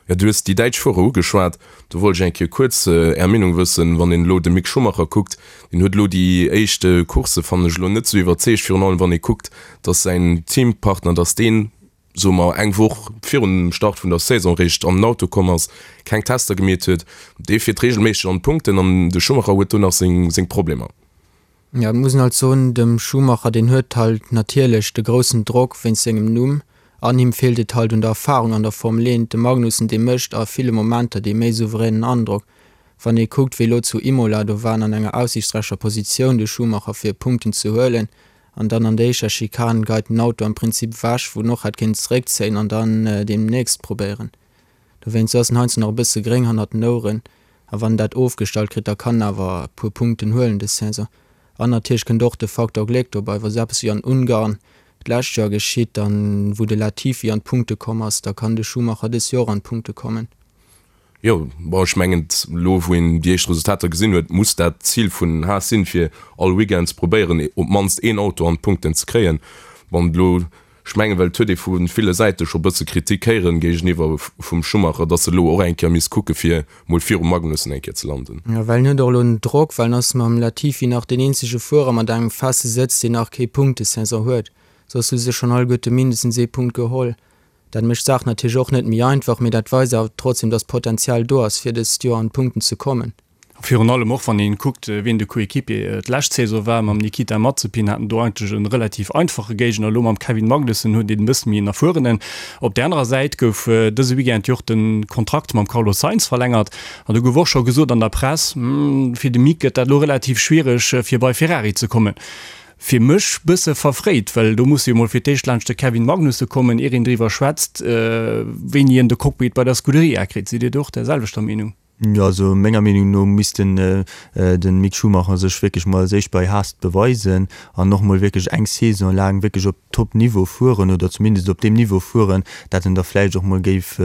Jo, du hues déi däitsch Fuerer ugeschwat. Do wollt ech eng Kéier kuerz Är Meenung wëssen. Wann een elo de Mick Schumacher kuckt, deen huet elo déi éischt Coursse, fannen ech, elo net esou iwwerzeegt, virun allem wann ee kuckt, datt säin Teampartner, datt deen, soe mer, eng Woch virun dem Start vun der Saison eréischt an den Auto komm ass, keng Tester gemeet huet. Dee fiert reegelméisseg an d'Punkten an de Schumacher huet do nach seng Problemer. Jo, et muss een halt soen, dem Schumacher, deen huet halt natierlech de groussen Drock wéinst sengem Numm an him feelt et halt un der Erfarung an der Formel 1. De Magnussen, dee mécht a ville Momenter dee méi souveränen Androck. Wann ee kuckt, wéi elo zu Imola, do war en an enger aussiichtsräicher Positioun, de Schumacher, fir Punkten ze huelen an dann an der éischter Schikane geit den Auto am Prinzip ewech, wou en och hätt kéinten zeréckzéien an dann deemnächst probéieren. Dowéinst ass en heiansdo nach e bësse gréng hannert den Oueren. A wann en dat ofgestallt kritt, da kann en awer e puer Punkten huelen dës Saison. An natierlech kënnt och de Faktor Gléck dobei. Wa sou eppes wéi an Ungarn d'lescht Joer geschitt, dann wou de Latifi an d'Punkte komm ass, da kann de Schumacher dës Joer och an d'Punkte kommen. Jo, bon, ech mengen, elo wou een déi éischt Resultater gesinn huet, muss dat d'Zil vun Haas sinn, fir all Weekend ze probéieren, op d'mannst een Auto an d'Punkten ze kréien. Bon, elo, ech mengen, well et huet ee vu ville Säite scho bësse Kritik héieren géigeniwwer vum Schumacher, datt e elo och eng Kéier misst kucke fir mol virum Magnussen eng Kéier ze landen. Jo, well en huet och elo den Drock, well en ass mam Latifi nach deen eenzege Fuerer mat engem feste Sëtz, deen nach kee Punktesaison huet. Soss hu se schonn alleguerte mindestens ee Punkt geholl. Dat mécht d'Saach natierlech och net méi einfach, mee dat weist awer trotzdem, dass Potenzial do ass, fir dëst Joer an d'Punkten ze kommen. A virun allem och, wann een kuckt, wien de Coéquipier d'lescht Saison war, mam Nikita Mazepin hat en do eigentlech e relativ einfache Géigner, elo mam Kevin Magnussen huet een e bësse méi en erfuerenen. Op där anerer Säit gouf dëse Weekend jo och de Kontrakt mam Carlos Sainz verlängert an do gouf och scho gesot an der Press, fir de Mick gëtt dat elo relativ schwiereg, fir bei Ferrari ze kommen. Fir mech bësse verfréit, well do muss jo mol fir d'éischt laanscht de Kevin Magnussen kommen, ier een driwwer schwätzt, wéini en de Cockpit bei der Scuderia kritt. Sidd Dir do och där selwechter Meenung? Jo, also menger Meenung no misst den de Mick Schumacher sech wierklech mol als éischt bei Haas beweisen an och mol wierklech eng Saison laang wierklech op Top Niveau fueren oder zumindest op deem Niveau fueren, dat en da vläicht och mol géif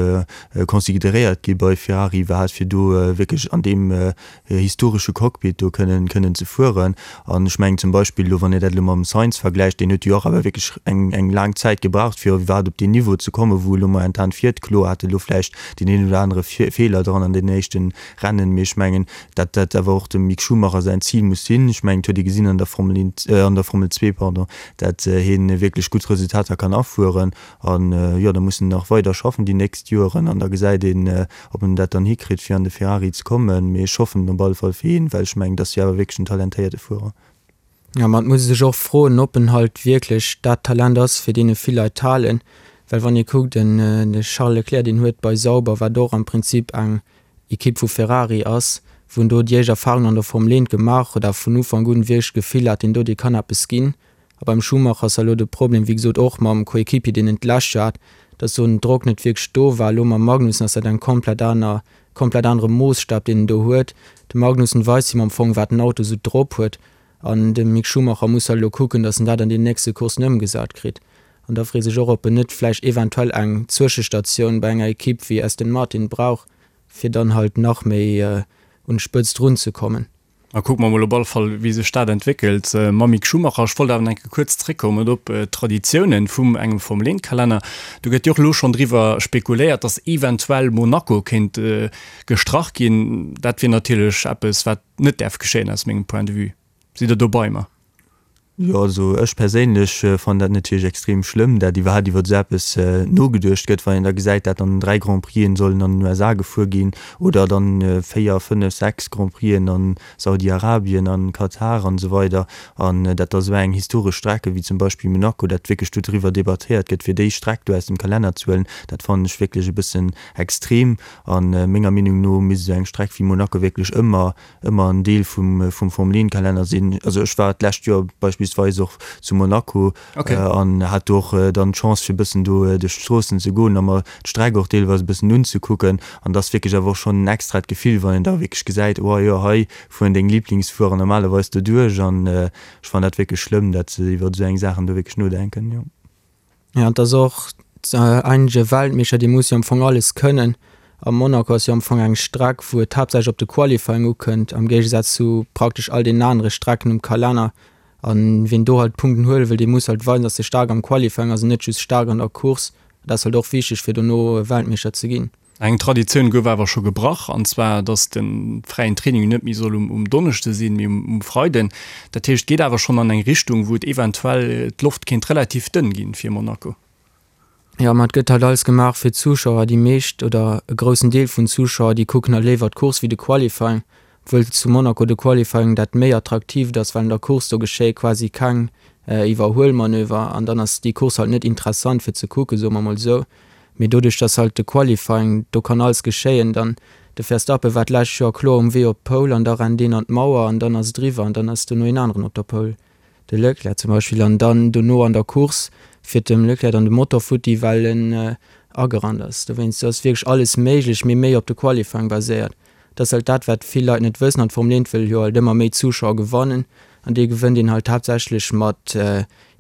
consideréiert gi bei Ferrari iwwerhaapt, fir do wierklech an deem historesche Cockpit do kënnen kënnen ze fueren. An ech mengen zum Beispill elo, wann Dir dat elo mam Sainz vergläicht, deen huet jo och awer wierklech eng eng laang Zäit gebraucht, fir iwwerhaapt op deen Niveau ze kommen, wou e lo momentan fiert. Kloer hat e lo vläicht deen een oder anere Feeler dran an den éischte Rennen, mee ech mengen, dat dat awer och dem Mick Schumacher säin Zil muss sinn. Ech mengen, et huet ee gesinn an der Formel 1, an der Formel 2, pardon, dat hien wierklech gutt Resultater kann afueren. An jo, da muss en nach weider schaffen déi nächst Joeren an da gesäit een, ob en dat dann hikritt, fir an de Ferrari ze kommen. Mee ech hoffen op alle Fall fir hien, well ech mengen, et ass jo awer wierklech en talentéierte Fuerer. Jo, ma et muss ee sech och froen, ob en halt wierklech dat Talent ass, fir deen e vill Leit halen. Well wann ee kuckt, den de Charles Leclerc, deen huet bei Sauber, wat och am Prinzip eng Ekipp vu Ferrari ass, wou en do déi éischt Erfarungen an der Formel 1 gemaach huet a vun Ufank un wierklech d'Gefill hat, deen do, dee kann eppes ginn. A beim Schumacher ass elo de Problem, wéi gesot, och mam Coéquipier, deen en d'lescht Joer hat, dass do den Drock net wierklech do war. Elo mam Magnussen ass dat eng komplett aner, komplett anere Moossstab, deen en do huet. De Magnussen weist him am Fong, wat den Auto esou drop huet. An de Mick Schumacher muss halt elo kucken, dass en dat an deenen nächste Courssen ëmgesat kritt. An da freet sech och, ob en net vläicht eventuell eng Zwëschestatioun bei enger Ekipp wéi Aston Martin brauch, fir dann halt nach méi un d'Spëtzt runzekommen. A kucke mer mol op alle Fall, wéi sech dat entwéckelt mam Mick Schumacher. Ech wollt awer nach eng Kéier kuerz zréckkommen op d'Traditiounen vum engem Formel-Eent-Kalenner. Do gëtt jo och elo schonn driwwer spekuléiert, datt eventuell Monaco kéint gestrach ginn. Dat wier natierlech eppes, wat net däerf geschéien aus mengem Point de vue. Sidd Der do bei mer? Jo, also ech perséinlech fannen dat natierlech extrem schlëmm, dat iwwerhaapt iwwer esou eppes nogeduecht gëtt, wann een da gesäit, dat dann 3 Grand Prixen sollen an den USA gefuer ginn oder dann 4, 5, 6 Grand Prixen an Saudi-Arabien, an Katar an esou weider an dat da esou eng historesch Strecke wéi zum Beispill Monaco, dat wierklech do driwwer debattéiert gëtt, fir déi Streck do aus dem Kalenner ze huelen, dat fannen ech wierklech e bëssen extrem. A menger Meenung no misst esou eng Streck wéi Monaco wierklech ëmmer ëmmer en Deel vum vum Formel 1 Kalenner sinn. Also ech war d'lescht Joer beispillsweis. beispillsweis och zu Monaco an hat do och dann d'Chance fir e bëssen do duerch d'Stroossen ze goen a mer d'Streck och deelweis e bëssen unzekucken. An et ass wierklech awer och schonn en extrat Gefill, wann een da wierklech gesäit, oh jo, hei fueren deng Liblingsfuerer normalerweis doduerch. An ech fannen dat wierklech schlëmm, dat se iwwer esou eng Saachen do wierklech nodenken, jo. Jo, an et ass och eigentlech e Weltmeeschter, dee muss jo am Fong alles kënnen. A Monaco ass jo am Fong eng Streck, wou et haaptsächlech op de Qualifying ukënnt, am Géigesaz zu praktesch all deenen anere Strecken um Kalenner. A wien do halt Punkten huele wëll, dee muss halt weisen, datt e staark am Qualifying ass an net just staark an der Course. Dat ass halt och wichteg, fir dono Weltmeeschter ze ginn. Eng Traditioun gouf awer scho gebrach, an zwar datt de fräien Training net méi soll um Donneschde sinn, mee um Freiden. Dat heescht, et geet awer schonn an eng Richtung, wou et eventuell d'Loft kéint relativ dënn ginn fir Monaco. Jo, ma et gëtt halt alles gemaach fir d'Zuschauer. Déi meescht oder e groussen Deel vun Zuschauer, déi kucken halt léiwer d'Course wéi de Qualifying, obwuel zu Monaco de Qualifying dat méi attraktiivt ass, well an der Course do geschéie quasi keng Iwwerhuelmanöver an dann ass déi Course halt net interessant fir ze kucken, soe mer mol esou. Mee doduerch dass halt de Qualifying, do kann alles geschéien, dann de Verstappen war d'lescht Joer kloer um Wee op d'Pole an da rennt een an d'Mauer an dann ass et eriwwer an dann ass dono een aneren op der Pole, de Leclerc zum Beispill, an dann dono an der Course fiert dem Leclerc dann de Motor futti well en agerannt ass. Dowéinst, do ass wierklech alles méiglech, mee méi op de Qualifying baséiert. Dat ass halt dat wat vill Leit net wëssen an d'Formel 1 wëll jo halt ëmmer méi Zuschauer gewannen an déi gewënnt een halt haaptsächlech mat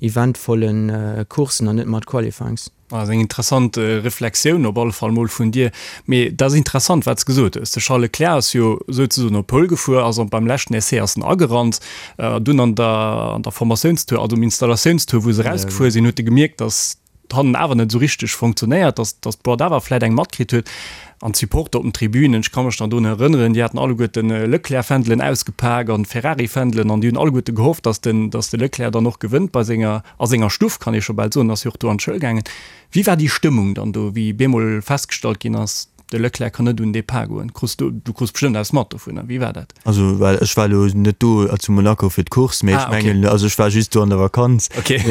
eventvollen Coursen an net mat Qualifyings. Dat ass eng interessant Reflexioun op alle Fall mol vun dir. Mee dat ass interessant, wat s de gesot hues. De Charles Leclerc ass jo souzesoen op Pole gefuer, ass an beim leschten Essai ass en agerannt. Dunn an der an der Formatiounstour, also um Installatiounstour, wou se erausgefuer sinn, huet e gemierkt, datt hannen awer net esou richteg funktionéiert, datt datt d'Boîte awer vläit eng matkritt huet. An d'Supporter op den Tribünen, ech ka mech nach drun erënneren, déi haten alleguerte Leclerc-Fändelen ausgepak an Ferrari-Fändelen an déi hunn alleguerte gehofft, datt den datt de Leclerc dann och gewënnt bei senger A senger Stuff, kann ee scho bal soen, ass jo och do an d'Schoul gaangen. Wéi war déi Stëmmung dann do, wéi bemol festgestallt ginn ass, de Leclerc kann net un den Depart goen? Krus du, du krus bestëmmt eppes mat dovunner. Wéi war dat? Also well ech war elo net do zu Monaco fir d'Course, mee ech mengen, also ech war just do an der Vakanz. Okay.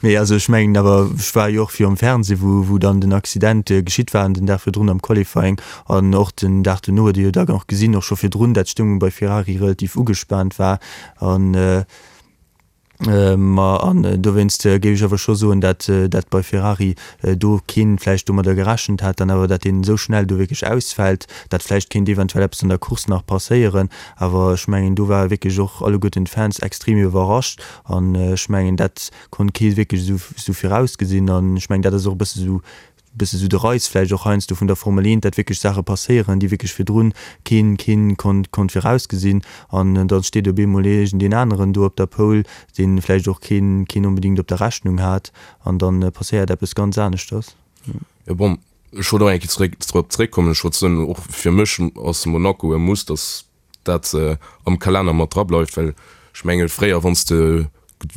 Mee also ech mengen awer, ech war jo och virum Fernseh, wou, wou dann den Accident geschitt war, den Dag virdrun am Qualifying an och den Dag duerno huet ee jo da och gesinn, och scho virdrun, dat d'Stëmmung bei Ferrari relativ ugespaant war an, Ma an dowéinst géif ech awer scho soen, dat dat bei Ferrari do keen vläicht domadder gerechent hat, dann awer dat deen esou schnell do wierklech ausfält, dat vläicht kéint eventuell eppes an der Course nach passéieren. Awer ech mengen do ware wierklech och alleguerten d'Fans extrem iwwerrascht an ech mengen dat konnt kee wierklech esou esou virausgesinn an ech mengen dat ass och e bësse esou bësse sou de Reiz vläicht och heiansdo vun der Formel 1, dat wierklech Saache passéieren, déi wierklech virdrun keen, keen konnt, konnt virausgesinn. An da steet op eemol iergendeen aneren do op der Pole, dee vläicht och keen, keen onbedéngt op der Rechnung hat. An da passéiert eppes ganz aneschters. Jo bon, ech wollt och eng Kéier zeréck, drop zeréckkommen. Ech wollt soen, och fir mech ass Monaco e Muss, dass dat am Kalenner mat dra bleift, well ech menge fréier wann s de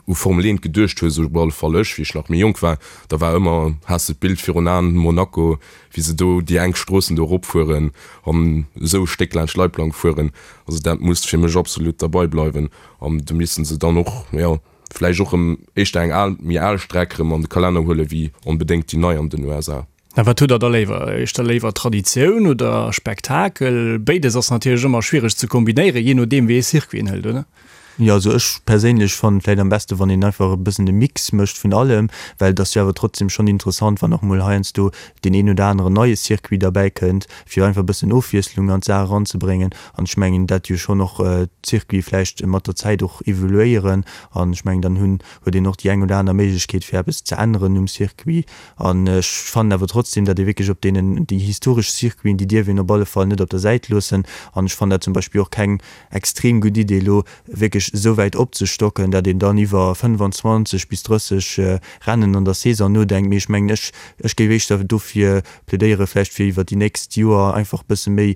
u Formel 1 geduecht hues, op alle Fall ech, wéi ech nach méi jonk war, da war ëmmer, has de d'Bild virun Aen, Monaco, wéi se do déi enk Stroossen do eropfueren an esou e Stéck laanscht Leitplank fueren. Also dat muss fir mech absolut derbei bleiwen an do misste se dann och, jo, vläicht och erëm éischter eng al, méi al Streck erëm an de Kalenner huele wéi onbedéngt déi nei an den USA. A wat hutt der da léiwer? Éischter léiwer Traditioun oder Spektakel? Béides ass natierlech ëmmer schwiereg ze kombinéieren, jee nodeem wéi ee Circuit een hëlt, oder? Jo, also ech perséinlech fannen et vläit am beste wann een einfach e bëssen de Mix mécht vun allem, well et ass jo awer trotzdem schonn interessant wann och mol heiansdo deen een oder aneren neie Circuit derbäi kënnt, fir einfach e bëssen Ofwiesslung an d'Saach eranzebréngen. An ech mengen dat jo schonn och d'Circuite vläicht mat der Zäit och evoluéieren an ech mengen dann hunn huet een och déi eng oder aner Méiglechkeet fir eppes ze änneren um Circuit. An ech fannen awer trotzdem, datt ee wierklech op deenen, déi historesch Circuiten, déi dierf een op alle Fall net op der Säit loossen. An ech fannen dat zum Beispill och keng extrem gutt Idee, elo wierklech esou wäit opzestocken, datt een dann iwwer 25 bis 30 Rennen an der Saison nodenkt. Mee ech mengen, ech, ech géif éischter dofir plädéieren, vläicht fir iwwer déi nächst Joer einfach e bësse méi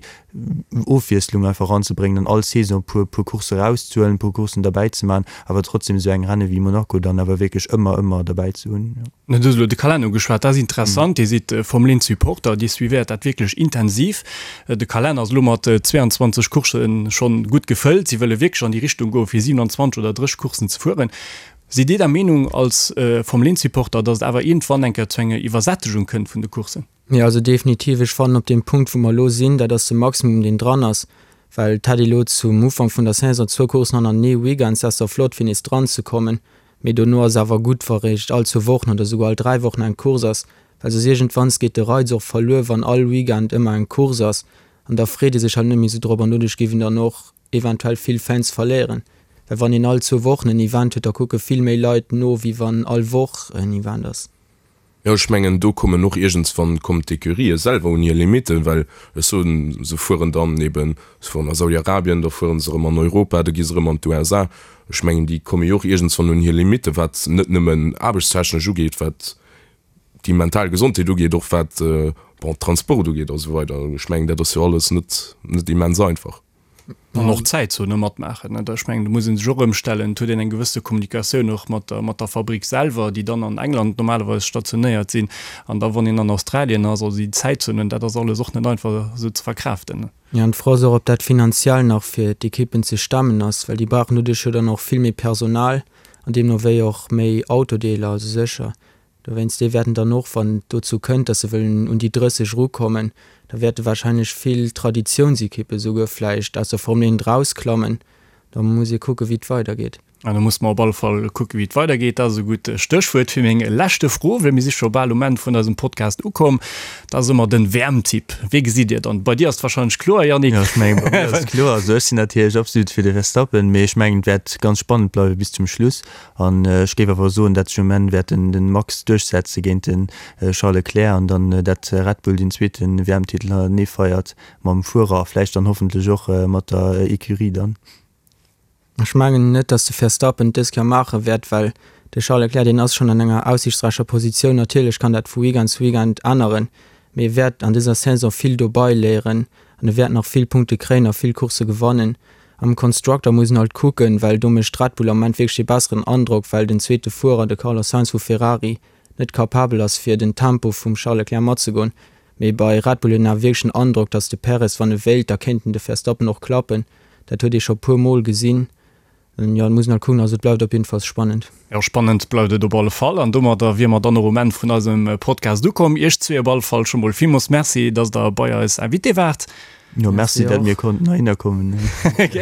Ofwiesslung einfach eranzebréngen an all Saison e puer, puer Coursse erauszehuelen, e puer Courssen derbäizeman, awer trotzdem esou eng Renne wéi Monaco dann awer wierklech ëmmer, ëmmer derbäi ze hunn. Du hues elo de Kalenner ugeschwat, dat ass interessant. Dir sidd Formel 1 Supporter, Dir suivéiert dat wierklech intensiv. De Kalenner ass elo mat 22 Courssen schonn gutt gefëllt. Si wëlle wierklech an déi Richtung goen, fir 27 oder 30 Courssen ze fueren. Sidd Dir der Meenung als Formel 1 Supporter, datt et awer iergendwann eng Kéier zu enger Iwwersättegung kënnt vun de Courssen? Jo, also definitiv. Ech fannen, op deem Punkt, wou mer elo sinn, dat ass de Maximum, deen dran ass. Well et hätt ee lo zum Ufank vun der Saison zwou Courssen hannertenee Weekends, dat ass da flott fir nees dran ze kommen, mee dono ass awer gutt wa réischt all zwou Wochen oder souguer all 3 Wochen eng Course ass, well soss iergendwanns geet de Reiz och verluer wann all Weekend ëmmer eng Course ass an da freet ee sech halt net méi sou drop an doduerch géif een dann och eventuell vill Fans verléieren, well wann een all zwou Wochen en Event huet, da kucke vill méi Leit no wéi wann all Woch en Event ass. Jo, ech mengen, do kommen och iergendswann kommen d'Ecurië selwer un hir Limitten, well ech soen, se fueren dann eben, se fueren a Saudi-Arabien, da fuere se erëm an Europa, da gi se erëm an d'USA. Ech mengen, déi komme jo och iergendswann un hir Limitten, wat net nëmmen aarbechtstechnesch ugeet, wat déi mental Gesondheet ugeet, och wat, bon, Transport ugeet a sou weider. Ech mengen, dat ass jo alles net, net immens einfach. An och d'Zäitzone matmaachen. Ech mengen, do muss ee sech och ëmstellen. Et huet een eng gewësse Kommunikatioun och mat der, mat der Fabrick selwer, déi dann an England normalerweis stationéiert sinn. An da wann een an Australien ass, also déi Zäitzonen, dat ass alles och net einfach esou ze verkraaften. Jo, an d'Fro ass och, ob dat finanziell nach fir d'Ekippen ze stemmen ass, well déi brauchen doduerch jo dann och vill méi Personal an deemno wéi och méi Autodeeler, also sécher Dowéinst, déi wäerten dann och, wann et dozou kënnt, datt se wëllen un déi 30 erukommen, da wäerte warscheinlech vill Traditiounsekippe souguer vläicht aus der Formel 1 erausklammen. Da muss ee kucken, wéi et weidergeet. An da musse mer op alle Fall kucken, wéi et weidergeet. Dat ass e gutt Stéchwuert fir meng leschte Fro, well mir si scho bal um Enn vun eisem Podcast ukomm. Dat ass ëmmer den WM-Tipp. Wee gesitt Dir dann? Bei dir ass et warscheinlech kloer, Yannick. Jo, ech mengen, bei mir ass et kloer. Also ech sinn natierlech absolut fir de Verstappen, mee ech mengen, et wäert ganz spannend bleiwe bis zum Schluss. An ech géif awer soen, dat sech um Enn wäert den den Max duerchsetze géint den Charles Leclerc an dann dat Red Bull den zweeten WM-Titel hannertenee feiert mam Fuerer a vläicht dann hoffentlech och mat der Ecurie dann. Ech mengen net, datt de Verstappen et dës Kéier maache wäert, well de Charles Leclerc, deen ass schonn an enger aussiichtsräicher Positioun. Natierlech kann dat vu Weekend zu Weekend änneren, mee e wäert an dëser Saison vill dobei léieren an e wäert nach vill Punkte kréien a vill Coursse gewannen. Am Constructor muss een halt kucken, well do mécht Red Bull am Moment wierklech dee besseren Androck, well den zweete Fuerer, de Carlos Sainz vu Ferrari, net capabel ass fir den Tempo vum Charles Leclerc matzegoen. Mee bei Red Bull huet een awer wierklech den Androck, datt de Perez, wann e wéilt, da kéint en de Verstappen och klappen. Dat huet ee scho puer Mol gesinn. Jo, et muss een halt kucken. Also et bleift op jiddefalls spannend. Jo, spannend bleift et op alle Fall. An domadder wier mer dann och um Enn vun eisem Podcast ukomm. Iech zwee op alle Fall scho mol villmools Merci, datt der bei eis Invité waart. Jo, merci, dat mir konnten heihinner kommen.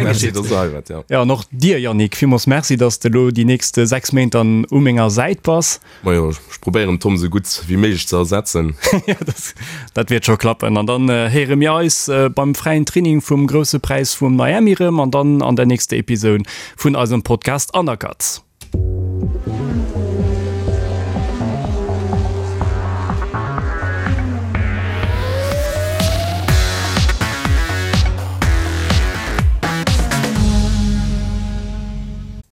Merci, dass der hei waart, jo. Jo, an och dir, Yannick, villmools Merci, dass de elo déi nächst 6 Méint dann u menger Säit bass. Majo, ech probéieren Tom sou gutt wéi méiglech ze ersetzen. Jo, dat wäert scho klappen. An dann héiere mir eis beim fräien Training vum Grousse Präis vu Miami erëm an dann an der nächster Episoun vun eisem Podcast Undercut.